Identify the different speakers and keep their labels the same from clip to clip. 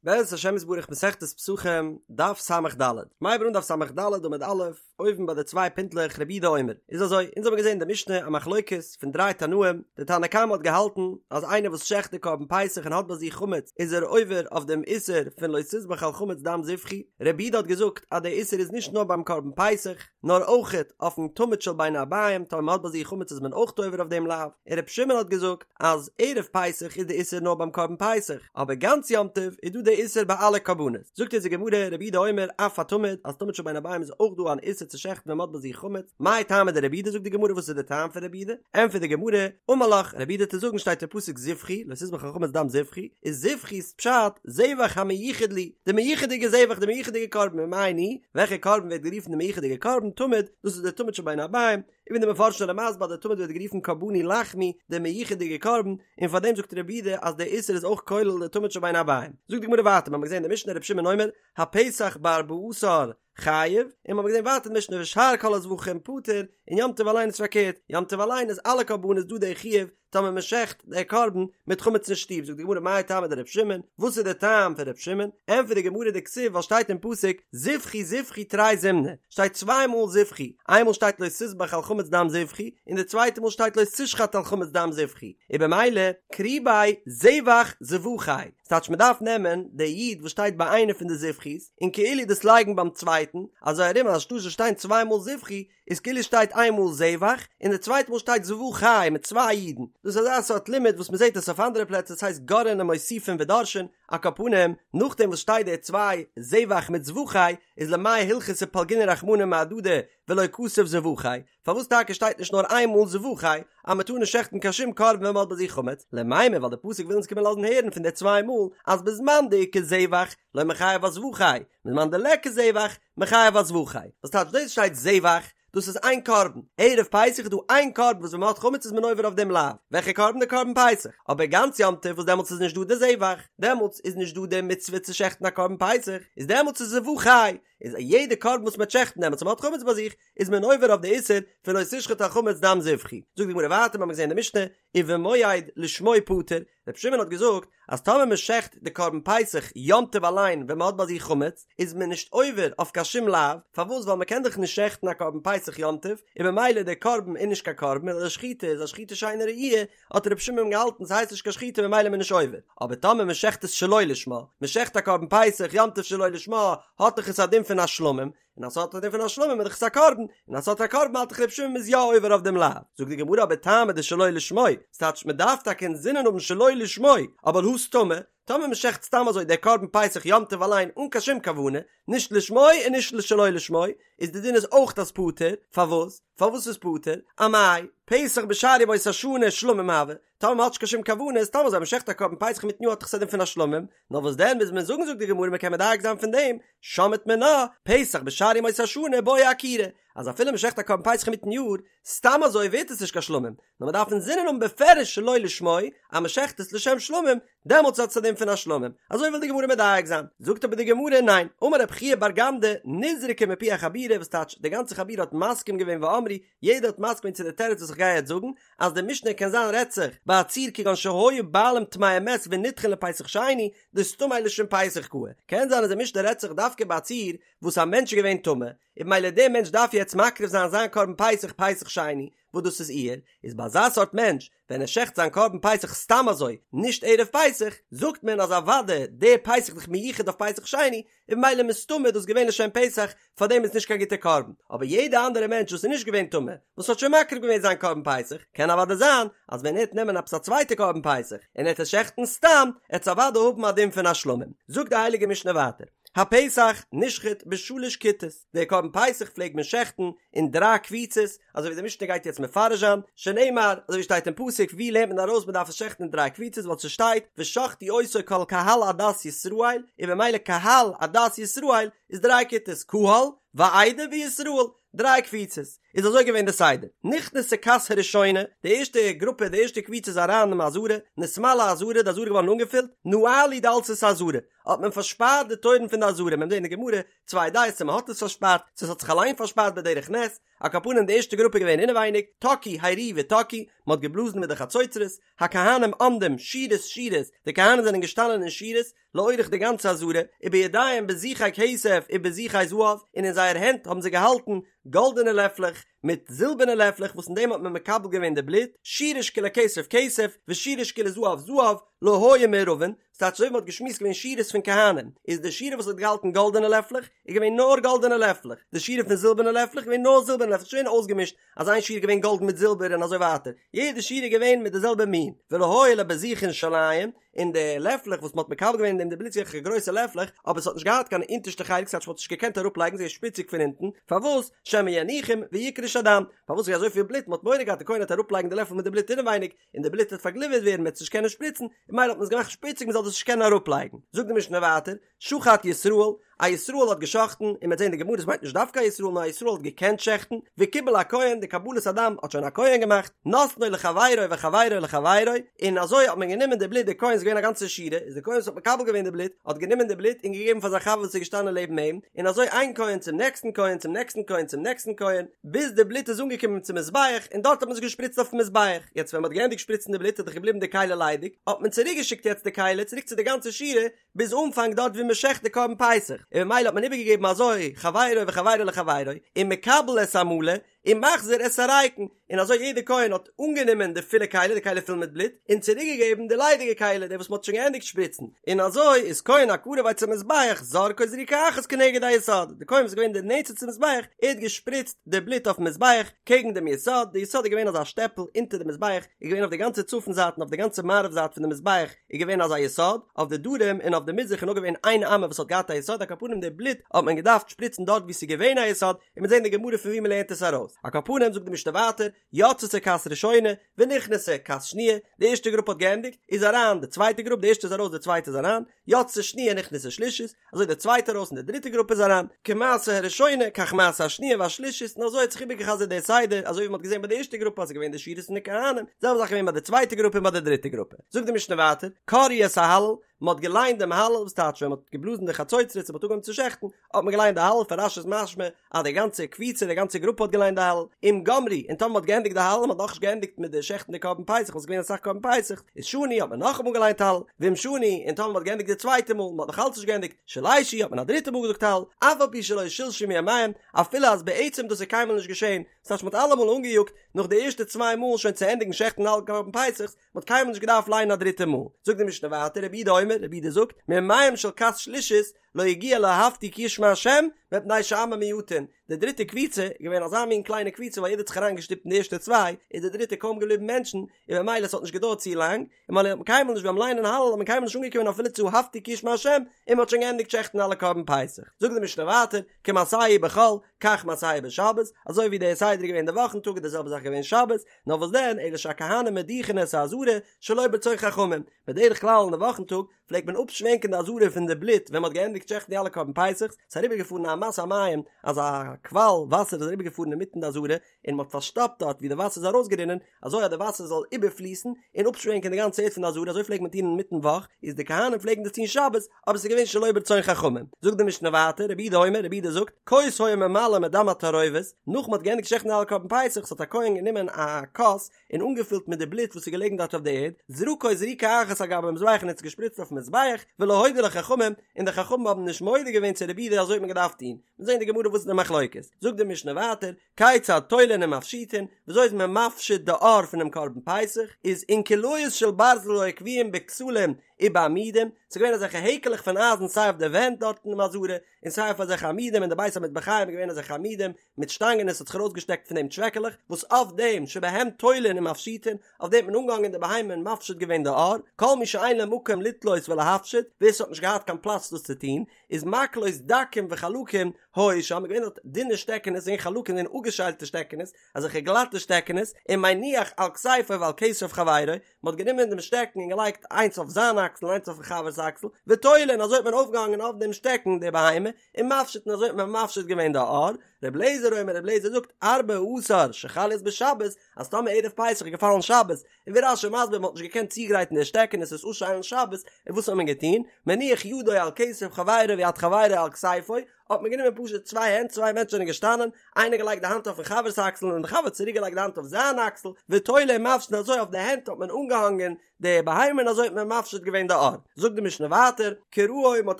Speaker 1: בעזרת השם יתברך מסכת פסחים, דף ס"ד. מ'הייבט אן דף ס"ד עמוד א', אויבן ביי די צוויי פינטלעך רבי יהודה אומר. איז אזוי, אונז האבן געזען אין די משנה א מחלוקת פון דריי תנאים, די תנא קמא האט געהאלטן אז איינער וואס שעכט די קרבן פסח און האט ביי זיך חמץ איז ער עובר אויף דעם איסור פון לא תזבח על חמץ דם זבחי, רבי יהודה האט געזאגט אז דער איסור איז נישט נאר ביים קרבן פסח, נאר אויכעט אויפן תמיד של בין הערביים, טאמער מען האט ביי זיך חמץ איז מען אויך עובר אויף דעם לאו, און רבי שמעון האט געזאגט אז ערב פסח איז די איסור נאר ביים קרבן פסח, אבער גאנץ יום טוב איז דא די איסור ביי אלע קרבנות. זאגט אונז די גמרא, רבי יהודה אומר, אף התמיד, אז תמיד של בין הערביים איז אויך דא אן איסור צו שעכטן ווען מען האט ביי זיך חמץ, מאי טעמא דרבי יהודה זאגט די גמרא וואס איז די טעם פון רבי יהודה? ענטפערט די גמרא, אמר לך, רבי יהודה וועט דיר זאגן שטייט אין פסוק זבחי, לא תזבח על חמץ דם זבחי, איז זבחי איז פשט, זבח המיוחד לי, די מיוחד'יגע זבח, די מיוחד'יגע קרבן, ומאי ניהו, וועלכע קרבן ווערט גערופן די מיוחד'יגע קרבן, תמיד, דאס איז די תמיד של בין הערביים, און ווי די מפרשים זענען מסביר אז די תמיד ווערט גערופן קרבני לחמי, די מיוחד'יגע קרבן, און פאר דעם זאגט רבי יהודה אז דער איסור איז אויך כולל די תמיד של בין הערביים. זאגט די גמרא ווייטער, מ'האמיר געזען אין די משנה רבי שמעון אומר, הפסח בארבעה עשר חייב, און מ'האמיר געזען ווייטער אין די משנה ושאר כל הזבחים פטור, און יום טוב אליין איז פארקערט, יום טוב אליין איז אלע קרבנות דא דער חיוב, טאמער מען שעכט דער קרבן מיט חמץ אין שטוב, זאגט די גמרא מאי טעמא דרבי שמעון, וואס איז דער טעם פון רבי שמעון, ענטפערט די גמרא דכתיב ווייל שטייט אין פסוק זבחי זבחי תרי זימני, שטייט צוויי מאל זבחי, איינמאל שטייט לא תזבח על חמץ דם זבחי, און די צווייטע מאל שטייט לא תשחט על חמץ דם זבחי, און במילא קרי ביה זבח זבחי, ס'טייטש מען דארף נעמען די יוד וואס שטייט ביי איינע פון די זבחי'ס און כאילו דאס לייגן ביים צווייטן, אזוי ארום אז אנשטאט זאל שטיין צוויי מאל זבחי, איז כאילו שטייט איין מאל זבח און די צווייטע מאל שטייט זבחי מיט צוויי יודן, דאס איז אזא סארט לימוד וואס מ'זעט עס אויף אנדערע פלעצער ס'הייסט גורעין ומוסיפין ודורשין, על כל פנים נאכדעם וואס שטייט די צוויי זבח מיט זבחי איז למאי הלכתא פלגינהו רחמנא מהדדי ולא כתב זבחי, פארוואס טאקע שטייט נישט נאר איין מאל זבחי אז מ'טאר נישט שעכטן קיין שום קרבן ווען מ'האט ביי זיך חמץ, למימר ווייל די פסוק וויל אונז קומען לאזן הערן פון די צוויי מאל אז בזמן דאיכא זבח לא מיחייב אזבחי, בזמן דליכא זבח מיחייב אזבחי, וואס טייטש דאס שטייט זבח, דאס איז איין קרבן, ערב פסח איז דא איין קרבן וואס ווען מען האט חמץ איז מען עובר אויף דעם לאו, וועלכע קרבן? די קרבן פסח, אבער גאנץ יום טוב וואס דעמאלטס איז נישט דא די זבח, דעמאלטס איז נישט דא די מצוה צו שעכטן א קרבן פסח, איז דעמאלטס איז זבחי, איז יעדע קרבן וואס מען וועט שעכטן דעמאלטס ווען מען האט חמץ ביי זיך, איז מען עובר אויף די איסור פון לא תשחט על חמץ דם זבחי. זאגט די גמרא ווייטער, מיר האבן געזען אין די משנה, ובמועד לשמו פטור, רבי שמעון האט געזאגט אז טאמער מען שעכט די קרבן פסח יום טוב אליין ווען מען האט ביי זיך חמץ איז מען נישט עובר אויף קיין שום לאו, פארוואס ווייל מען קען דאך נישט שעכטן א קרבן פסח יום טוב און במילא דער קרבן איז נישט קיין קרבן און די שחיטה איז א שחיטה שאינה ראויה, האט רבי שמעון געהאלטן ס'הייסט נישט קיין שחיטה ממילא איז מען נישט עובר, אבער טאמער מען שעכט עס שלא לשמה, מען שעכט א קרבן פסח יום טוב שלא לשמה האט דאך עס א דין פון א שלמים, און אז ס'האט א דין פון א שלמים איז דאך עס א קרבן, און אז ס'האט א קרבן האלט דאך ר' שמעון מ'איז יא עובר אויף דעם לאו. זאגט די גמרא אבער טעמא דשלא לשמו, ס'טייטש מ'דארף טאקע אינזינען האבן שלא לשמו, אבער הא סתמא, טאמער מ'שעכט סתם אזוי דער קרבן פסח יום טוב אליין אן קיין שום כוונה, נישט לשמו און נישט שלא לשמו, איז די דין איז אויך אז פטור, פארוואס? פארוואס איז פטור? אמאי, פסח בשאר ימות השנה שלמים הוי, טאמער מ'האט נישט קיין שום כוונה איז סתם אזוי מ'שעכט א קרבן פסח אינמיטן יאר האט דאך עס א דין פון א שלמים, נאר וואס דען מוז מען זאגן זאגט די גמרא מ'קען מדייק זיין פון דעם, שמעת מינה, פסח בשאר ימות השנה בעי עקירה, אז אפילו מ'שעכט א קרבן פסח אינמיטן יאר, סתם אזוי ווערט עס נישט קיין שלמים, נאר מ'דארף אינזינען האבן בפירוש שלא לשמו, אז מ'שעכט עס לשם שלמים, דעמאלטס האט עס א דין פון א שלמים, אזוי וויל די גמרא מדייק זיין, זאגט אבער די גמרא ניין, אמר רב חייא בר גמדא, נזרקה מפי החבורה וואס טייטש די גאנצע חבורה האט מסכים געווען ואמרו, יעדער האט מסכים געווען צו די תירוץ וואס איך גיי יעצט זאגן, אז די משנה קען זיין רעדט זיך ביי א ציור כגון שהיו בעלים טמאי מת ונדחין לפסח שני, דסתמיה לשם פסח קאי, קען זיין אז די משנה רעדט זיך דווקא ביי א ציור וואס א מענטש איז געווען טמא, און במילא דער מענטש דארף יעצט מקריב זיין זיין קרבן פסח פסח שני, וואס דאס איז אייר, איז ביי אזא סארט מענטש ווען ער שעכט זיין קרבן פסח סתם אזוי, נישט ערב פסח, זאגט מען אז אוודאי דער פסח איז דאך מיוחד אויף פסח שני, און במילא מסתמא איז דאס געווען לשם פסח, פארדעם איז נישט קיין גוטע קרבן, אבער יעדע אנדערע מענטש וואס איז נישט געווען טמא, וואס האט שוין מקריב געווען זיין קרבן פסח, קען אוודאי זיין אז ווען ער העט נעמען עפעס א צווייטע קרבן פסח, און ער העט עס שעכטן סתם, העט עס אוודאי האבן א דין פון א שלמים. זאגט די הייליגע משנה ווייטער, הפסח נשחט בשלש כיתות, דער קרבן פסח פלעגט מען שעכטן אין דריי קבוצות, אזוי ווי די משנה גייט יעצט מפרש זיין, שנאמר, אזוי ווי שטייט אין פסוק, ווי לערנט מען ארויס מען דארף עס שעכטן אין דריי קבוצות, ווייל ס'שטייט, ושחטו אותו כל קהל עדת ישראל, און במילא קהל עדת ישראל איז דריי כיתות, קהל, ועדה וישראל, דריי קבוצות, איז אזוי געווען די סדר, נכנסה כת הראשונה, די ערשטע גרופע, די ערשטע קבוצה איז אריין אין עזרה, נתמלאה העזרה, די עזרה איז געווארן אנגעפילט, נעלו דלתות העזרה. האט מען פארשפארט די טויערן פון די עזרה, מ'וועט זען אין די גמרא צוויי דעות צו מען האט עס פארשפארט, צו עס האט זיך אליין פארשפארט בדרך נס, על כל פנים די ערשטע גרופע איז געווען אינעווייניג, תקעו הריעו ותקעו, מען האט געבלאזן מיט די חצוצרות, הכהנים עומדים שורות שורות, די כהנים זענען געשטאנען אין שורות, לאורך די גאנצע עזרה, ובידיהם בזיכי כסף ובזיכי זהב, און אין זייער הענט האבן זיי געהאלטן גאלדענע לעפלעך מיט זילבערנע לעפלעך וואס אין דעם האט מען מקבל געווען די בלוט, שורה שכולה כסף כסף, ושורה שכולה זהב זהב, לא היו מעורבין, ס'טייטש אזוי ווי מ'האט געשמועסט געווען שורות פון כהנים, איז די שורה וואס האט געהאלטן גאלדענע לעפלעך, איז געווען נאר גאלדענע לעפלעך, די שורה פון זילבערנע לעפלעך איז געווען נאר זילבערנע לעפלעך, נישט געווען אויסגעמישט אז איין שורה איז געווען גאלד מיט זילבער און אזוי ווייטער, יעדע שורה איז געווען מיט די זעלבע מין, ולא היו לבזיכין שוליים, און די לעפלעך וואס מ'האט מקבל געווען אין דעם די בלוט זעכער גרויסע לעפלעך, אבער ס'האט נישט געהאט קיין אונטערשטע חלק ס'טייטש מ'האט נישט געקענט אראפלייגן ס'איז געווען שפיציג פון אונטן, פארוואס? שמא יניחום ויקרש הדם, פארוואס איז אזויפיל בלוט מ'האט מורא געהאט די כהן וועט אראפלייגן די לעפל מיט די בלוט אינעווייניג, און די בלוט וועט פארגליווערט ווערן מ'וועט עס נישט קענען שפריצן, און ממילא האט מען עס געמאכט שפיציג מ'זאל דאס נישט קענען אראפלייגן. זאגט די משנה ווייטער, שחט ישראל, א ישראל האט געשחטן, און מ'וועט זען די גמרא עס מיינט נישט דווקא א ישראל נאר א ישראל האט געקענט שעכטן, וקיבל הכהן, די קבלת הדם האט שוין א כהן געמאכט, נתנו לחבירו וחבירו לחבירו, און אזוי האט מען גענומען די בלוט, די כהן איז געווען א גאנצע שורה, איז די כהן וואס האט מקבל געווען די בלוט, האט גענומען די בלוט און געגעבן פאר זיין חבר וואס איז געשטאנען לעבן אים, און אזוי איין כהן צום נעקסטן כהן צום נעקסטן כהן צום נעקסטן כהן, ביז די בלוט איז אנגעקומען צום מזבח, און דארט האט מען עס געשפריצט אויפן מזבח, יעצט ווען מען האט געענדיגט שפריצן די בלוט איז דאך געבליבן די כלי ליידיג, האט מען צוריק געשיקט יעצט די כלי צוריק צו די גאנצע שורה, ביז אנפאנג דארט ווי מען שעכט די קרבן פסח, און ממילא האט מען איבערגעגעבן אזוי חברו וחברו לחברו, ומקבל את המלא, ומחזיר את הריקן, און אזוי יעדער כהן האט אנגענומען די פולע כלי, די כלי פול מיט בלוט, און צוריקגעגעבן די ליידיגע כלי, די וואס מען האט שוין געענדיגט שפריצן, און אזוי איז כהן הקרוב אצל המזבח זורקו זריקה אחת כנגד היסוד, די כהן וואס איז געווען די נענטסטע צום מזבח, ער האט געשפריצט די בלוט אויפן מזבח קעגן דעם יסוד, די יסוד איז געווען אזא שטעפל אונטער די מזבח, איז געווען אויף די גאנצע צפון זייט און אויף די גאנצע מערב זייט פון די מזבח איז געווען אזא יסוד, אויף די דרום און אויף די מזרח איז נאר געווען איין אמה וואס האט געהאט א יסוד, על כל פנים די בלוט האט מען געדארפט שפריצן דארט וואו ס'איז געווען א יסוד, און מ'וועט זען די גמרא פון וואו מ'לערנט עס ארויס. על כל פנים זאגט די משנה ווייטער, יצתה כת ראשונה, ונכנסה כת שניה, די ערשטע גרופע האט געענדיגט, איז אריין די צווייטע גרופ, די ערשטע איז ארויס די צווייטע איז אריין, יצתה שניה נכנסה שלישית, אזוי די צווייטע ארויס און די דריטע גרופע איז אריין, כמעשה הראשונה כך מעשה השניה והשלישית, און אזוי האט זיך איבערגעחזרט דער סדר, אזוי ווי מ'האט געזען ביי די ערשטע גרופע אז ס'איז געווען די שורות פון די כהנים, זעלבע זאך געווען ביי די צווייטע גרופע און ביי די דריטע גרופע. זאגט די משנה ווייטער, קראו את ההלל, מען האט געליינט דעם הלל, וואס טייטש ווען מען האט געבלאזן די חצוצרות און מען האט אנגעהויבן צו שעכטן, האט מען געליינט די הלל, פון רש"י איז משמע אז די גאנצע קבוצה, די גאנצע גרופע האט געליינט די הלל, אם גמרו, און טאמער מען האט געענדיגט די הלל, מען האט נאכנישט געענדיגט מיט די שעכטן די קרבן פסח, וואס איז געווען אסאך קרבן פסח, איז שנו האט מען נאכאמאל געליינט הלל, ואם שנו, און טאמער מען האט געענדיגט די צווייטע מאל, מען האט נאך אלץ נישט געענדיגט, שלשו האט מען א דריטע מאל געזאגט הלל, אף על פי שלא שלשו מימיהם, אפילו אז בעצם דאס איז קיינמאל נישט געשען, ס'טייטש מען האט אלעמאל אנגעיאגט נאך די ערשטע צוויי מאל שוין צו ענדיגן שעכטן אלע קרבן פסח'ס, מען האט קיינמאל נישט געדארפט ליינען א דריטע מאל. זאגט די משנה ווייטער, רבי יהודה אומר, רבי יהודה זאגט, מימיהם של כת שלישית לא הגיע לאהבתי כי ישמע השם, מפני שעמים מועטין. די דריטע קבוצה איז געווען אזא מין קליינע קבוצה ווייל יעדער האט זיך אריינגעשטופט אין די ערשטע צוויי, איז די דריטע קוים געבליבן מענטשן, און ממילא עס האט נישט געדויערט צו לאנג, און ממילא האט מען קיינמאל נישט ביים ליינען הלל האט מען קיינמאל נישט אנגעקומען אפילו צו אהבתי כי ישמע השם, און מען האט שוין געענדיגט שעכטן אלע קרבן פסח. זאגט די משנה ווייטער, כמעשהו בחול, כך מעשהו בשבת, אזוי ווי דער סדר איז געווען די וואכן טאג איז די זעלבע זאך געווען שבת, נאר וואס דען, אלא שהכהנים מדיחין את העזרה שלא ברצון חכמים, בדרך כלל אין די וואכן טאג פלעגט מען אפשווענקען די עזרה פון די בלוט ווען מען האט געענדיגט שעכטן די אלע קרבן פסח'ס, ס'איז אריבערגעפארן א אמת המים, אזא קוואל וואסער איז אריבערגעפארן אינמיטן די עזרה, און מען האט פארשטאפט דארט ווי די וואסער איז ארויסגערינען, אזוי אז די וואסער זאל איבערפליסן און אפשווענקען די גאנצע ערד פון די עזרה, אזוי פלעגט מען טון אינמיטן וואך, איז די כהנים פלעגן דאס טון שבת, אבער ס'איז געווען שלא ברצון חכמים. זאגט די משנה ווייטער, רבי יהודה אומר, רבי יהודה זאגט, כוס היה ממלא מדם התערובת, נאך מ'האט געענדיגט שעכטן אלע קרבן פסח, האט א כהן גענומען א כוס און אנגעפילט מיט די בלוט וואס איז געלעגן דארט אויף די ערד, זרקו זריקה אחת על גבי המזבח און האט עס געשפריצט אויפן מזבח, ולא הודו לו חכמים, און די חכמים האבן נישט מודה געווען צו רבי יהודה אזוי האט מען געדארפט טון. מיר זעען אין די גמרא וואס איז די מחלוקת. זאגט די משנה ווייטער, כיצד תולין ומפשיטין, וויאזוי איז מען מפשיט די עור פונעם קרבן פסח, איז אונקליות של ברזל היו קבועים בכתלים ובעמודים, ס'איז געווען אזעלכע העקעלעך פון אייזן סיי אויף די ווענט דארט אינעם עזרה, און סיי אויף אזעלכע עמודים אין די בית המטבחיים איז געווען אזעלכע עמודים מיט שטאנגען און ס'האט זיך ארויסגעשטעקט פון דעם טשוועקעלעך, וואס אויף דעם שבהם תולין ומפשיטין, אויף דעם האט מען אנגעהאנגען די בהמה און מפשיט געווען די עור, כל מי שאין לו מקום לתלות ולהפשיט, ווער ס'האט נישט געהאט קיין פלאץ דאס צו טון, איז מקלות דקים וחלקים היו שם, געווען דארט דינע שטעקענעס און חלקים און אפגעשיילטע שטעקענעס, אזעלכע גלאטע שטעקענעס, ומניח על כתפו ועל כתף חברו, מען האט גענומען דעם שטעקן און געלייגט איינס אויף זיין אקסל און איינס אויפן חבר'ס אקסל, ותולה און אזוי האט מען אויפגעהאנגען אויף דעם שטעקן די בהמה, ומפשיט און אזוי האט מען מפשיט געווען די עור. ר' אליעזר אומר ר' אליעזר זאגט ארבעה עשר שחל להיות בשבת, אז טאמער ערב פסח איז געפאלן שבת, און ווי רש"י מסביר מ'האט נישט געקענט צוגרייטן די שטעקענעס עס אפשיילן שבת, און וואס האט מען געטון? מניח ידו על כתף חברו ויד חברו על כתפו, האט מען גענומען פשוט צוויי הענט, צוויי מענטשן זענען געשטאנען, איינער געלייגט די האנט אויפן חבר'ס אקסל און די חבר האט צוריק געלייגט די האנט אויף זיין אקסל, ותולה ומפשיט און אזוי אויף די הענט האט מען אנגעהאנגען די בהמה און אזוי האט מען מפשיט געווען די עור. זאגט די משנה ווייטער, קרעו מען האט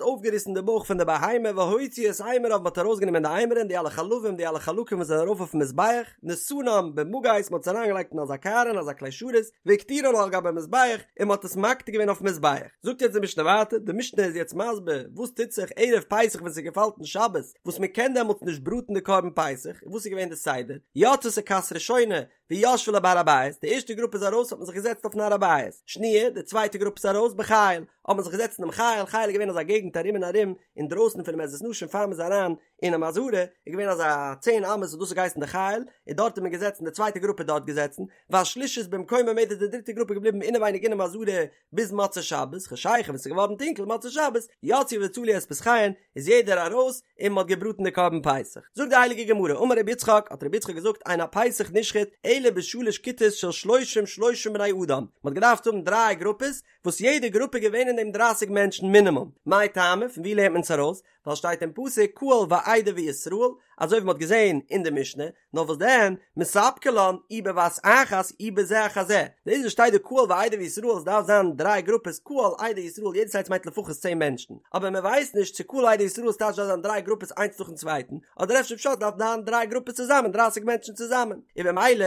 Speaker 1: אויפגעריסן די בויך פון די בהמה והוציא את אימוריו מען האט ארויסגענומען די אימורין די אלע חלבים די אלע חלקים וואס זענען ארויף אויפן מזבח, נתנם במגיס מען האט עס אריינגעלייגט אין אזא קערה אין אזא כלי שרת, והקטירן על גבי המזבח און מען האט עס מקטיר געווען אויפן מזבח. זאגט יעצט די משנה ווייטער, די משנה איז יעצט מסביר וואס טוט זיך ערב פסח ווען ס'געפאלט אין שבת, וואס מען קען דעמאלטס נישט בראטן די קרבן פסח, און וואס איז געווען די סדר, יצתה כת ראשונה וישבה לה בהר הבית, די ערשטע גרופע איז ארויס האט מען זיך געזעצט אויפן הר הבית, שניה, די צווייטע גרופע איז ארויס בחיל, האט מען זיך געזעצט אינעם חיל, חיל איז געווען אזא געגנט ארום און ארום, אינדרויסן פונעם עזרת נשים פאר מען איז אריין אינעם עזרה, איז געווען אזא צען אמות וואס דאס האט געהייסן די חיל, און דארט איז מען געזעצן די צווייטע גרופע איז דארט געזעצן, והשלישית במקומה עומדת די דריטע גרופע איז געבליבן אינעווייניג אינעם עזרה ביז מוצאי שבת, חשיכה ווען ס'איז געווארן טונקל מוצאי שבת, יצאו וצלו את פסחיהן, איז יעדער ארויס און מ'האט געבראטן די קרבן פסח. זאגט די הייליגע גמרא, אמר רבי יצחק, האט רבי יצחק געזאגט, אין הפסח נשחט אלא בשלש כיתות של שלושים שלושים בני אדם, מ'האט געדארפט האבן דריי גרופעס, וואס יעדע גרופע איז געווען אין דעם דרייסיג מענטשן מינימום, מאי טעמא, פון וואו לערנט מען עס ארויס? ווייל שטייט אין פסוק קהל ועדה וישראל, אזוי ווי מ'האט געזען אין די משנה, נאר וואס דען, מספקא לן אי בבת אחת אי בזה אחר זה, דאס וואס שטייט דא קהל ועדה וישראל עס דארף זיין דריי גרופעס קהל עדה ישראל יעדעס איינס מיינט לפחות צען מענטשן, אבער מען ווייסט נישט צו קהל עדה ישראל טייטש דארף זיין דריי גרופעס איינס נאכן צווייטן, אדער אפשר פשט דארף זיין דריי גרופעס צוזאמען דרייסיג מענטשן צוזאמען, און במילא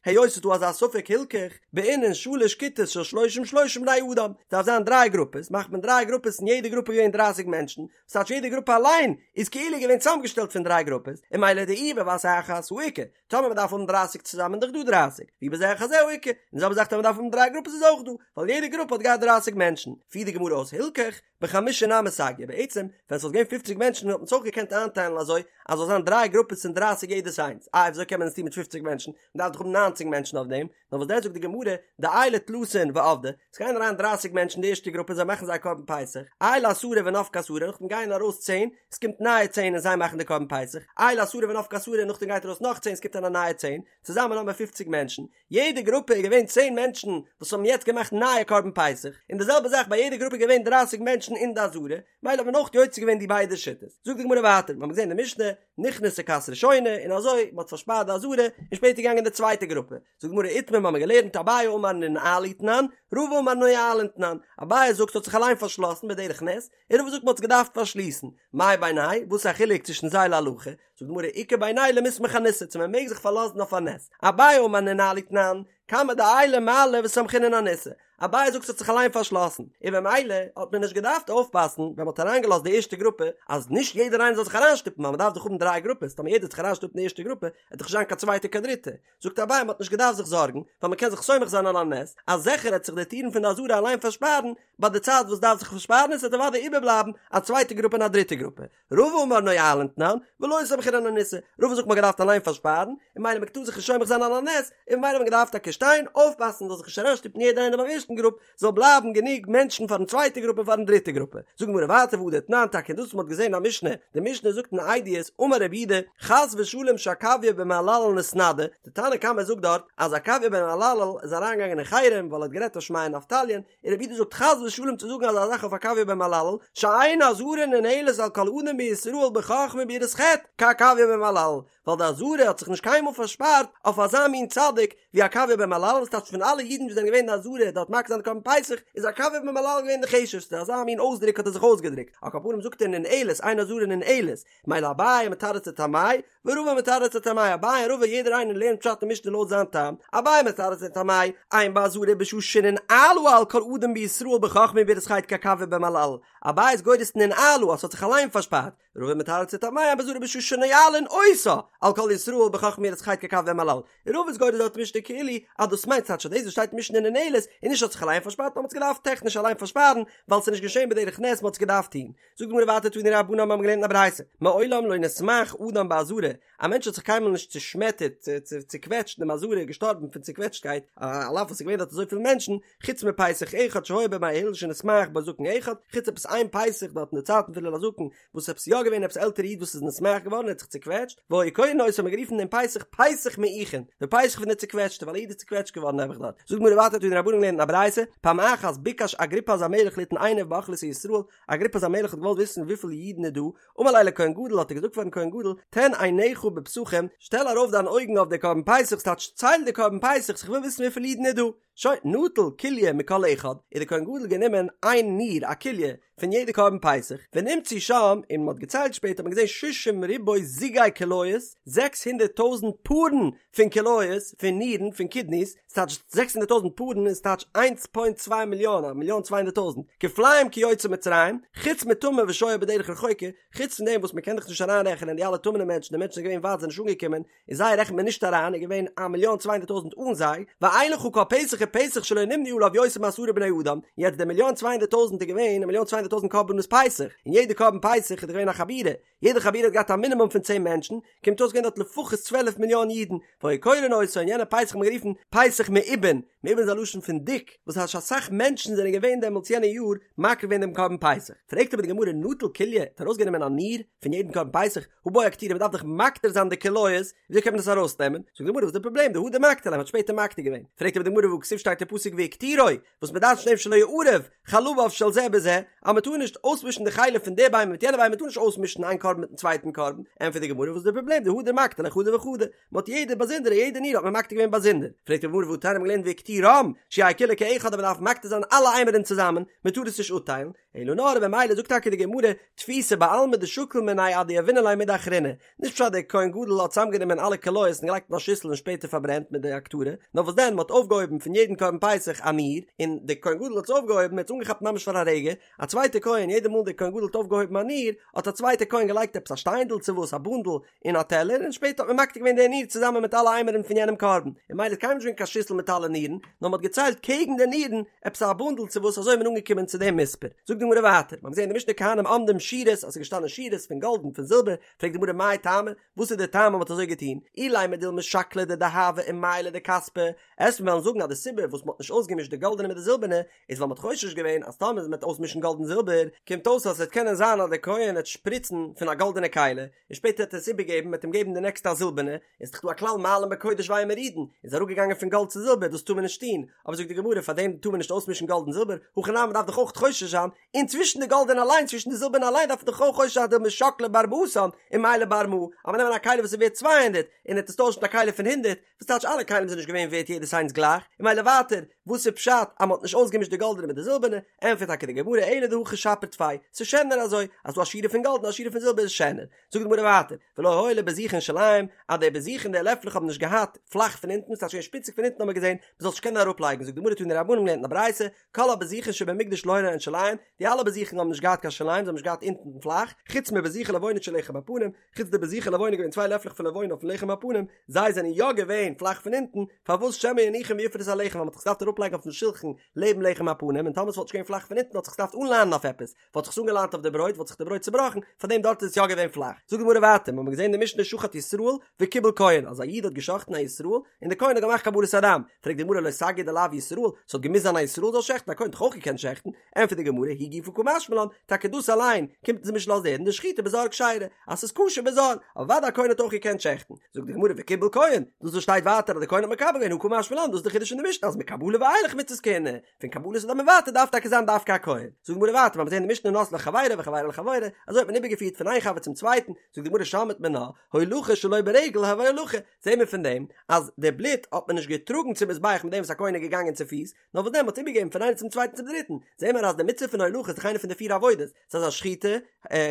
Speaker 1: היות ס'איז דא אזא ספק הילכך, בעינן שלש כיתות של שלושים שלושים בני אדם, ס'דארף זיין דריי גרופעס, מאכט מען דריי גרופעס אין יעדע גרופע געווען דרייסיג מענטשן, ס'טייטש יעדע גרופע אליין איז כאילו געווען צוזאמגעשטעלט פון דריי גרופעס, און ממילא דאי בבת אחת הא איכא, טאמער מ'דארף האבן דרייסיג צוזאמען איז דאך דא דרייסיג, ואי בזה אחר זה הא איכא, און די זעלבע זאך טאמער מ'דארף האבן דריי גרופעס איז אויך דא, ווייל יעדע גרופע האט געהאט דרייסיג מענטשן, פירט די גמרא אויס הילכך, בחמשה נמי סגיא, בעצם ווען ס'וואלט געווען פופציג מענטשן וואלט מען עס אויך געקענט איינטיילן אזוי אז זאל זיין דריי גרופעס פון דרייסיג יעדעס איינס, איי וויאזוי קען מען עס טון מיט פופציג מענטשן, מ'דארף דאך האבן ניינציג מענטשן אויף דעם, נאר וואס דען זאגט די גמרא, דעיילי תלתין ועבדי, עס גייען אריין דרייסיג מענטשן אין די ערשטע גרופע זיי מאכן זייער קרבן פסח, עיילי עשרה ונפקי עשרה, נאכדעם גייען ארויס צען, עס קומט נייע צען און זיי מאכן די קרבן פסח, עיילי עשרה ונפקי עשרה, נאכדעם גייט ארויס נאך צען עס קומט אריין א נייע צען, צוזאמען האבן מיר פופציג מענטשן, יעדע גרופע איז געווען צען מענטשן וואס האבן יעצט געמאכט נייע קרבן פסח, און די זעלבע זאך ביי יעדע גרופע איז געווען דרייסיג מענטשן אין די עזרה, מילא האט מען אויך יוצא געווען די ביידע שיטות. זאגט די גמרא ווייטער, מיר האבן געזען אין די משנה, נכנסה כת ראשונה, און אזוי, מען האט פארשפארט די עזרה, און שפעטער געגאנגען די צווייטע גרופע. זאגט די גמרא איתמר, מיר האבן געלערנט אביי אמר ננעלו תנן, רבא אמר נועלין תנן, אביי זאגט ס'האט זיך אליין פארשלאסן בדרך נס, און רבא זאגט מען האט עס געדארפט פארשליסן. מאי בינייהו וואס איז א חילוק צווישן זיי להלכה? זאגט די גמרא איכא בינייהו למיסמך אניסא, צו מען מעג זיך פארלאזן אויף א נס. אביי אמר ננעלו תנן, כמה דעיילי מעלי וסמכינן אניסא, אביי זאגט ס'האט זיך אליין פארשלאסן, און במילא האט מען נישט געדארפט אויפפאסן ווען מ'האט אריינגעלאזט די ערשטע גרופע אז נישט יעדער איינער זאל זיך אריינשטופן ווייל מ'דארף דאך האבן דריי גרופעס, טאמער יעדער וועט זיך אריינשטופן אין די ערשטע גרופע וועט דאך נישט זיין קיין צווייטע קיין דריטע, זאגט אביי מ'האט נישט געדארפט זיך זארגן ווייל מ'קען זיך סומך זיין על הנס אז זיכער העט זיך די טירן פון די עזרה אליין פארשפארן ביי די צייט וואס דארף זיך פארשפארן און ס'וועט אוודאי איבערבלייבן א צווייטע גרופע און א דריטע גרופע. רבא אמר נועלין תנן, ולא סמכינן אניסא, רבא זאגט מ'האט געדארפט אליין פארשפארן, און ממילא מ'טאר זיך נישט סומך זיין על הנס, און ממילא האט מען געדארפט טאקע שטיין, אויפפאסן זאל זיך נישט אריינשטופן יעדער איינער ביים ערשטן גרופ, זאל בלייבן גענוג מענטשן פארן צווייטע גרופע און פארן דריטע גרופע. זאגט די גמרא ווייטער והא דתנן טאקע דאס וואס מ'האט געזען א משנה, די משנה זאגט אין עדיות, אמר רבי יהודה, חס ושלום שעקביה בן מהללאל נתנדה, די תנא קמא זאגט דארט אז עקביה בן מהללאל איז אריינגעגאנגען אין חרם ווייל ער האט גערעדט אויף שמעיה און אבטליון, און רבי יהודה זאגט חס ושלום צו זאגן אזא זאך אויף עקביה בן מהללאל, שאין העזרה ננעלת על כל אדם בישראל בחכמה וביראת חטא כעקביה בן מהללאל, ווייל די עזרה האט זיך נישט קיינמאל פארשפארט אויף אזא מין צדיק ווי עקביה בן מהללאל, וואס טייטש פון אלע אידן וואס זענען געווען אין די עזרה דארט מקריב זיין די קרבן פסח, איז עקביה בן מהללאל געווען די חשובסטע, אזא מין אויסדרוק האט ער זיך אויסגעדרוקט, על כל פנים זאגט ער ננעלת, אין העזרה ננעלת, מילא אביי מתרץ לטעמיה, ורבא מתרץ לטעמיה, אביי און רבא יעדער איינער לערנט פשט אין משנה לויט זיין טעם, אביי מתרץ לטעמיה, אין בעזרה בשעה שננעלה על כל אדם בישראל בחכמה וביראת חטא כעקביה בן מהללאל, אביי איז גורס ננעלה אז ס'האט זיך אליין פארשפארט, רבא מתרץ לטעמיה אין בעזרה בשעה שנועלין אותה על כל ישראל בחכמה וביראת חטא כעקביה בן מהללאל, רבא איז גורס דארט משנה כאילו. אז דאס מיינט ס'טייטש אז דאס וואס שטייט אין משנה ננעלת איז נישט האט זיך אליין פארשפארט נאר מ'האט עס געדארפט טעכניש אליין פארשפארן ווייל ס'איז נישט געשען בדרך נס מ'האט עס געדארפט טון. זאגט די גמרא ווייטער תנו רבנן מ'האבן געלערנט אין א ברייתא מעולם לא נסמעך אדם בעזרה א מענטש האט זיך קיינמאל נישט צושמעטערט צוקוועטשט אין דעם עזרה געשטארבן פון צוקוועטשטקייט על אף וואס ס'איז געווען דארט אזויפיל מענטשן חוץ מפסח אחד שהיה בימי הלל שנתמעך בו זקן אחד חוץ עפעס איין פסח דארט אין די צייטן פון הלל הזקן וואס עפעס יא געווען עפעס עלטערע איד וואס איז נתמעך געווארן ער האט זיך צוקוועטשט והיו קורין אותו האט מען גערופן דעם פסח פסח מעוכין די פסח פון די צוקוועטשטע ווייל א איד איז צוקוועטשט געווארן נעבעך דארט זאגט די גמרא ווייטער תנו רבנן געלערנט אין א ברייתא פעם אחת ביקש אגריפס המלך ליתן עיניו באוכלוסי ישראל אגריפס המלך האט געוואלט וויסן וויפיל אידן איז דא אמר ליה לכהן גדול האט ער געזאגט פארן כהן גדול תן עיניך בפסחים שטעל ארויף דיין אויגן אויף די קרבן פסח ס'טייטש צייל די קרבן פסח איך וויל וויסן וויפיל אידן איז דא שוין, נטל כליה מכל אחד, איז דער כהן גדול גענומען איין ניר, א כליה, פון יעדע קרבן פסח, ונמצאו שם, און מען האט געציילט שפעטער האט מען געזען שישים ריבוא זוגי כליות, 600 טויזנט פארן פון כליות, פון נירן, פון קידניס, ס'טייטש 600 טויזנט פארן איז טייטש איינס פוינט צוויי מיליאן, א מיליאן 200 טויזנט, כפליים כיוצאי מצרים, חוץ מטמא ושוה בדרך רחוקה, חוץ פון דעם וואס מען קען דאך נישט אריינרעכענען די אלע טמא'נע מענטשן, די מענטשן זענען געווען ווייט זענען נישט אנגעקומען, און זיי רעכנט מען נישט אריין, איז געווען א מיליאן צוויי הונדערט טויזנט אן זיי, ואין לך כל פסח ופסח שלא נמנו עליו יותר מעשרה בני אדם, יעצט די מיליאן צוויי הונדערט טויזנט איז געווען א מיליאן צוויי הונדערט טויזנט קרבנות פסח, און יעדע קרבן פסח איז דאך געווען א חבורה, יעדע חבורה האט געהאט א מינימום פון צען מענטשן, קומט אויס געווען דארט לפחות צוועלף מיליאן אידן, והיו קורין אותו, און יענע פסח האט מען גערופן פסח מעובין, מעובין איז א לשון פון דיק, וואס הייסט אסאך מענטשן זענען געווען דעמאלטס יענע יאר מקריב געווען דעם קרבן פסח, פרעגט אבער די גמרא נטל כליה, האט ארויסגענומען א ניר פון יעדן קרבן פסח, הא בעי אקטורי מ'דארף דאך מקטיר זיין די כליות, וויאזוי קען מען דאס ארויסנעמען? זאגט די גמרא וואס איז די פראבלעם דהדר מקטיר ליה מ'האט שפעטער מקטיר געווען, פרעגט אבער די גמרא והכתיב שטייט אין פסוק והקטירו, וואס מ'דרש'נט דעם שלא יערב חלביו של זה בזה, אז מ'טאר נישט אויסמישן די חלב פון די בהמה מיט יענע בהמה מ'טאר נישט אויסמישן איין קרבן מיטן צווייטן קרבן, ענטפערט די גמרא וואס איז די פראבלעם דהדר מקטיר ליה חדא וחדא, מ'האט יעדע באזונדערע יעדע ניר האט מען מקטיר געווען באזונדער, פרעגט די גמרא והתניא מ'האט געלערנט והקטירם, שיהא כולו כאחד אז מ'דארף מקטיר זיין אלע אימורין צוזאמען, מ'טאר עס נישט אפטיילן, אלא נאר במילא זאגט טאקע די גמרא תפיסא בעלמא דשקיל מינייהו עד דיהבינן ליה מידי אחרינא, נישט פשט דער כהן גדול האט צוזאמגענומען אלע כליות און געלייגט אין א שיסל און שפעטער פארברענט מיט די הקטרה, נאר וואס דען מ'האט אויפגעהויבן פון יעדן קרבן פסח א ניר, און דער כהן גדול האט עס אויפגעהויבן, ער האט עס אנגעכאפט ממש פאר א רגע, א צווייטער כהן יעדע מאל דער כהן גדול האט אויפגעהויבן א ניר, האט א צווייטער כהן געלייגט עפעס א שטיינדל צו וואס א בונדל אין א טעלער און שפעטער האט מען מקטיר געווען די ניר צוזאמען מיט אלע אימורין פון יענעם קרבן, און ממילא איז קיינמאל נישט געווען קיין שיסל מיט אלע נירן, נאר מ'האט געציילט קעגן די נירן עפעס א בונדל צו וואס אזוי איז מען אנגעקומען צו דעם מספר. זאגט די גמרא ווייטער, מ'האט געזען אין די משנה כהנים עומדים שורות אז ס'איז געשטאנען שורות פון גאלד און פון זילבער, פרעגט די גמרא מאי טעמא, וואס איז די טעם אז מ'האט אזוי געטון, אילימא דילמא שקלא דדהבא ומיילא דכספא, עסט מיר וועלן זאגן אז די סיבה וואס מ'האט נישט אויסגעמישט די גאלדענע מיט די זילבערנע איז ווייל מ'האט חושש געווען אז טאמער מ'וועט אויסמישן גאלד און זילבער קומט אויס אז ס'וועט קענען זיין אז דער כהן וועט שפריצן פון א גאלדענע כלי און שפעטער וועט ער עס איבערגעבן מ'וועט אים געבן די נעקסטע א זילבערנע, איז דאך דא א כלל מעלין בקודש ואין מורידין, איז אראפגעגאנגען פון גאלד צו זילבער דאס טאר מען נישט טון, אבער זאגט די גמרא פאר דעם טאר מען נישט אויסמישן גאלד און זילבער, הכי נמי מ'דארף דאך אויך חושש זיין, און צווישן די גאלדענע אליין צווישן די זילבערנע אליין דארף מען דאך אויך חושש זיין דילמא שקלא בר מאתן ומיילא בר מאה, אז מ'נעמען א כלי וואס איז ווערט 200 און ער וועט עס טוישן מיט א כלי פון 100, וואס טייטש אלע כלים זענען נישט געווען ווערט יעדעס איינס גלייך, און ממילא ווייטער, וואס איז פשט אז מ'האט נישט אויסגעמישט די גאלדענע מיט די זילבערנע, ענטפערט טאקע די גמרא אלא דהכי שפיר טפי, ס'איז שענער אזוי, אז ס'דא א שורה פון גאלד און א שורה פון זילבער איז שענער. זאגט די גמרא ווייטער, ולא היו לבזיכין שוליים, אז די בזיכין די לעפלעך האבן נישט געהאט פלאך פון אונטן, ס'טייטש געווען שפיציג פון אונטן האט מען געזען, מ'זאל נישט קענען אראפלייגן, זאגט די גמרא תנו רבנן געלערנט אין א ברייתא, כל הבזיכין שבמקדש לא היו להן שוליים, די אלע בזיכין האבן נישט געהאט קיין שוליים, זיי האבן נישט געהאט אונטן פלאך, חוץ מבזיכי לבונה של לחם הפנים, חוץ די בזיכי לבונה געווען צוויי לעפלעך פון לבונה אויפן לחם הפנים, זיי זענען יא געווען פלאך פון אונטן, פארוואס שמא יניחם ויפרוס הלחם ווייל מ'האט זיך געדארפט אראפלייגן אויפן שולחן לעבן לחם הפנים און טאמער ס'וואלט נישט געווען פלאך פון אונטן האט זיך געדארפט אנליינען אויף עפעס, וואלט זיך עס אנגעליינט אויף די ברויט וואלט זיך די ברויט צובראכן, פארדעם דארט איז עס יא געווען פלאך. זאגט די גמרא ווייטער, מ'האמיר געזען אין די משנה שחט ישראל וקיבל כהן, אז א איד האט גע'שחט'ן א ישראל און די כהן האט געמאכט קבלת הדם, פרעגט די גמרא לא סגי דלאו ישראל, ס'האט געמוזט זיין א ישראל זאל שעכטן, א כהן האט דאך אויך געקענט שעכטן, ענטפערט די גמרא היא גופא קא משמע לן, טאקע דאס אליין קומט אונז נישט לאזן הערן דשחיטה בזר כשרה, אז ס'איז כשר בזר, אוודאי א כהן האט אויך געקענט שעכטן, זאגט די גמרא וקיבל כהן, דאס וואס שטייט ווייטער אז די כהן האט מקבל געווען הא קא משמע לן, דאס איז די חידוש אין די משנה אז מקבלה ואילך מצות כהונה, פון קבלת הדם און ווייטער דארף טאקע זיין דווקא א כהן, זאגט די גמרא ווייטער מיר האבן געזען אין די משנה נותנו לחבירו וחבירו לחברו, אזוי האט מען איבערגעפירט פון איין חבר צום צווייטן, זאגט די גמרא שמעת מינה, הולכה שלא ברגל הויא הולכה, זעהן מיר פון דעם אז די בלוט האט מען נישט געטראגן צום מזבח מיט דעם וואס א כהן איז געגאנגען צופיס, נאר וואס דען מ'האט איבערגעגעבן פון איינעם צום צווייטן צום דריטן, זעהן מיר אז די מצוה פון הולכה איז דאך איינע פון די פיר עבודות, ס'איז א שחיטה,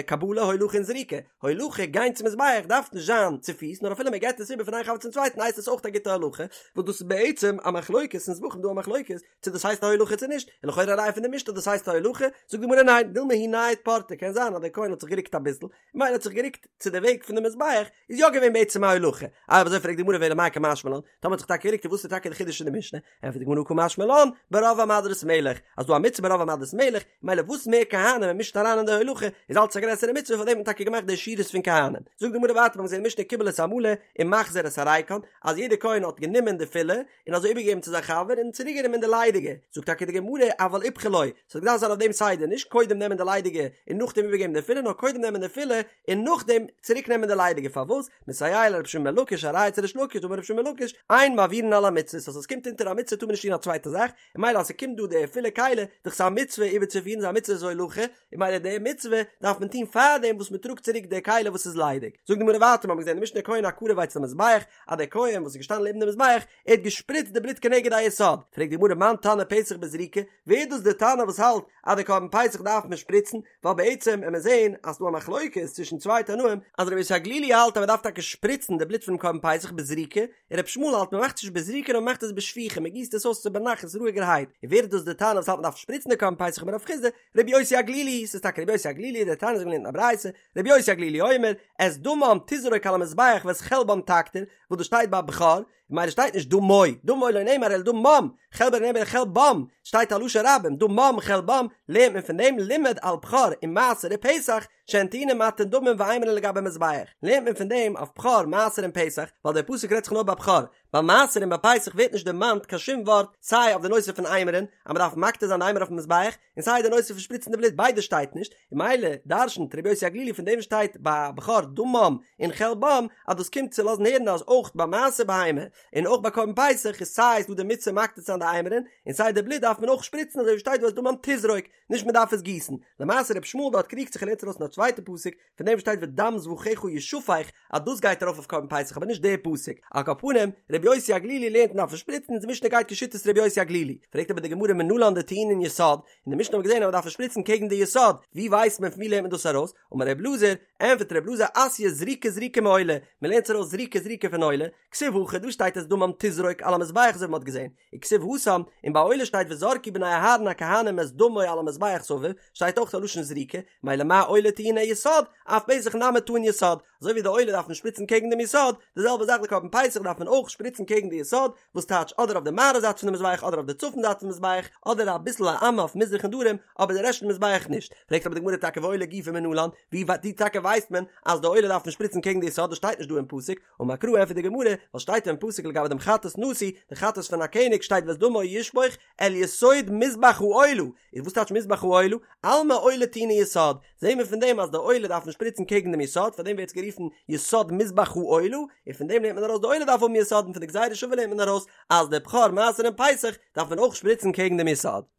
Speaker 1: קבלה, הולכה און זריקה, הולכה, גיין צום מזבח, דארף נישט זיין צופיס, נאר אפילו מען געבט עס איבער פון איין חבר צום צווייטן הייסט עס אויך א גוטע הולכה, וואס דאס איז בעצם א מחלוקת. אין זבחים דא א מחלוקת צו דאס הייסט א הולכה צו נישט, און לכאורה א ראיה פון די משנה אז דאס הייסט א הולכה, זאגט די גמרא ניין, דילמא הוא נייד פורתא, קען זיין אז דער כהן האט זיך גערוקט אביסל, ממילא האט זיך גערוקט צו די וועג פון די מזבח, איז יא געווען בעצם א הולכה, איי אויב אזוי פרעגט די גמרא ואלא מאי קא משמע לן, טאמער האט זיך טאקע גערוקט איז וואס איז טאקע די חידוש אין די משנה, ענטפערט די גמרא קא משמע לן, ברוב עם הדרת מלך, אז דא א מצוה ברוב עם הדרת מלך, ממילא וואס מער כהנים מען מישט אריין אין די הולכה, איז אלץ א גרעסערע מצוה פארדעם האט מען טאקע געמאכט די שורות פון כהנים. זאגט די גמרא ווייטער מיר האבן געזען אין משנה קיבל את המלא ומחזיר את הריקן, אז יעדער כהן האט גענומען די פילע, און אזוי איבערגעגעבן צו זיין חבר און צוריק גענומען די ליידיגע, זאגט טאקע די גמרא אבל איפכא לא, ס'האט געדארפט זיין אויף דעם סדר, נישט קודם נעמען די ליידיגע און נאכדעם איבערגעבן די פילע, נאר קודם נעמען די פילע און נאכדעם צוריק נעמען די ליידיגע, פארוואס? מסייע ליה לרבי שמעון בן לקיש א ראיה צו ריש לקיש דאמר רבי שמעון בן לקיש אין מעבירין על המצוות אז עס קומט אונטער א מצוה טאר מען נישט טון א צווייטע זאך, און ממילא אז ס'קומט דא די פילע כלי, דאך ס'איז א מצוה איבערצופירן, ס'איז א מצוות הולכה, און ממילא די מצוה דארף מען טון פארדעם וואס מען טראגט צוריק די כלי וואס איז ליידיג. זאגט די גמרא ווייטער, מ'האט געזען אין די משנה כהן הקרב אצל המזבח, אז דער כהן וואס איז געשטאנען לעבן די מזבח, ער האט געשפריצט די בלוט כנגד היסוד, פרעגט די גמרא מאן תנא פסח בזריקה, ווער איז דאס די תנא וואס האלט אז די קרבן פסח דארף מען שפריצן, ווייל בעצם וועט מען זען אז ס'דא א מחלוקת צווישן צוויי תנאים, אז רבי יוסי הגלילי האלט אז מ'דארף טאקע שפריצן די בלוט פונעם קרבן פסח בזריקה, און רבי ישמעאל האלט מ'מאכט עס נישט בזריקה נאר מ'מאכט עס בשפיכה, מ'גיסט עס אויס צו בנחת רואיגערהייט, און ווער איז דאס די תנא וואס האלט מ'דארף שפריצן די קרבן פסח אמר רב חסדא, רבי יוסי הגלילי, ס'איז טאקע רבי יוסי הגלילי, דתניא אזוי געלערנט אין א ברייתא, רבי יוסי הגלילי אומר, את דמם תזרוק על המזבח ואת חלבם תקטיר, וואס דאס שטייט ביי בכור, ממילא שטייט נישט דמו, דמו לא נאמר אלא דמם, חלבו לא נאמר אלא חלבם, שטייט א לשון רבים, דמם חלבם, לערנט מען פון דעם לימד על בכור ומעשר ופסח, שהן טעונין מתן דמים ואימורין לגבי מזבח, לערנט מען פון דעם אויף בכור, מעשר און פסח, ווייל דער פסוק רעדט זיך נאר ביי בכור, ביי מעשר און ביי פסח ווערט נישט דערמאנט קיין שום ווארט סיי אויף די נושא פון אימורין, אז מען דארף מקטיר זיין די אימור אויפן מזבח, און סיי די נושא פון שפריצן די בלוט ביידע שטייט נישט, און ממילא דרשנ'ט רבי יוסי הגלילי פון דעם שטייט ביי בכור דמם און חלבם אז דאס קומט צו לאזן הערן אז אויך ביי מעשר בהמה און אויך ביי קרבן פסח איז סיי איז דא די מצוה מקטיר צו זיין די אימורין און סיי די בלוט דארף מען אויך שפריצן אזוי ווי שטייט דא ואת דמם תזרוק נישט מען דארף עס גיסן, למעשה רבי ישמעאל דארט קריגט זיך און לערנט ארויס פון א צווייטע פסוק פון דעם שטייט ודם זבחיך ישפך אז דאס גייט ארויף אויף קרבן פסח אבער נישט דער פסוק, על כל פנים רבי יוסי הגלילי לערנט מען דארף שפריצן און די משנה גייט כשיטת רבי יוסי הגלילי, פרעגט אבער די גמרא מנלן דטעונין יסוד, אין די משנה האט מען געזען אז מען דארף שפריצן קעגן די יסוד, ווי ווייסט מען פון ווי לערנט מען דאס ארויס? אמר רבי אלעזר, ענטפערט רבי אלעזר אתיא זריקה זריקה מעולה, מען לערנט עס ארויס זריקה זריקה פון עולה, כתיב הכא דא שטייט את דמם תזרוק על המזבח אזוי ווי מען האט געזען, וכתיב התם, און ביי עולה שטייט וזרקו בני אהרן הכהנים את דמו על המזבח סביב, שטייט אויך א לשון זריקה, מילא מה עולה טעונה יסוד, אף פסח נמי טעון יסוד, אזוי ווי די עולה דארף מען שפריצן קעגן דעם יסוד, די זעלבע זאך די קרבן פסח דארף מען אויך שפריצן קעגן די יסוד, וואס טייטש אדער אויף די מערב זייט פון די מזבח אדער אויף די צפון זייט פון מזבח, אדער אביסל א אמה אויף מזרח און דרום, אבער די רעשט פון מזבח נישט. פרעגט אבער די גמרא טאקע ועולה גופא מנלן, ווי ווי טאקע ווייסט מען אז די עולה דארף מען שפריצן קעגן די יסוד, דאס שטייט נישט דא אין פסוק, אמר קרא ענטפערט די גמרא, ווייל שטייט אין פסוק לגבי דעם חטאת נשיא, די חטאת פון א קעניג שטייט ואת דמו ישפוך אל יסוד מזבח העולה, איז וואס טייטש מזבח העולה? אלמא עולה טעונה יסוד, זעהן מיר פון דעם אז די עולה דארף מען שפריצן קעגן דעם יסוד, פאר דעם ווערט עס גערופן יסוד מזבח העולה, און פון דעם לערנט מען ארויס די עולה דארף האבן יסוד, און פון די גזירה שווה לערנט מען ארויס אז די בכור מעשר און פסח דארף מען אויך שפריצן קעגן דעם יסוד.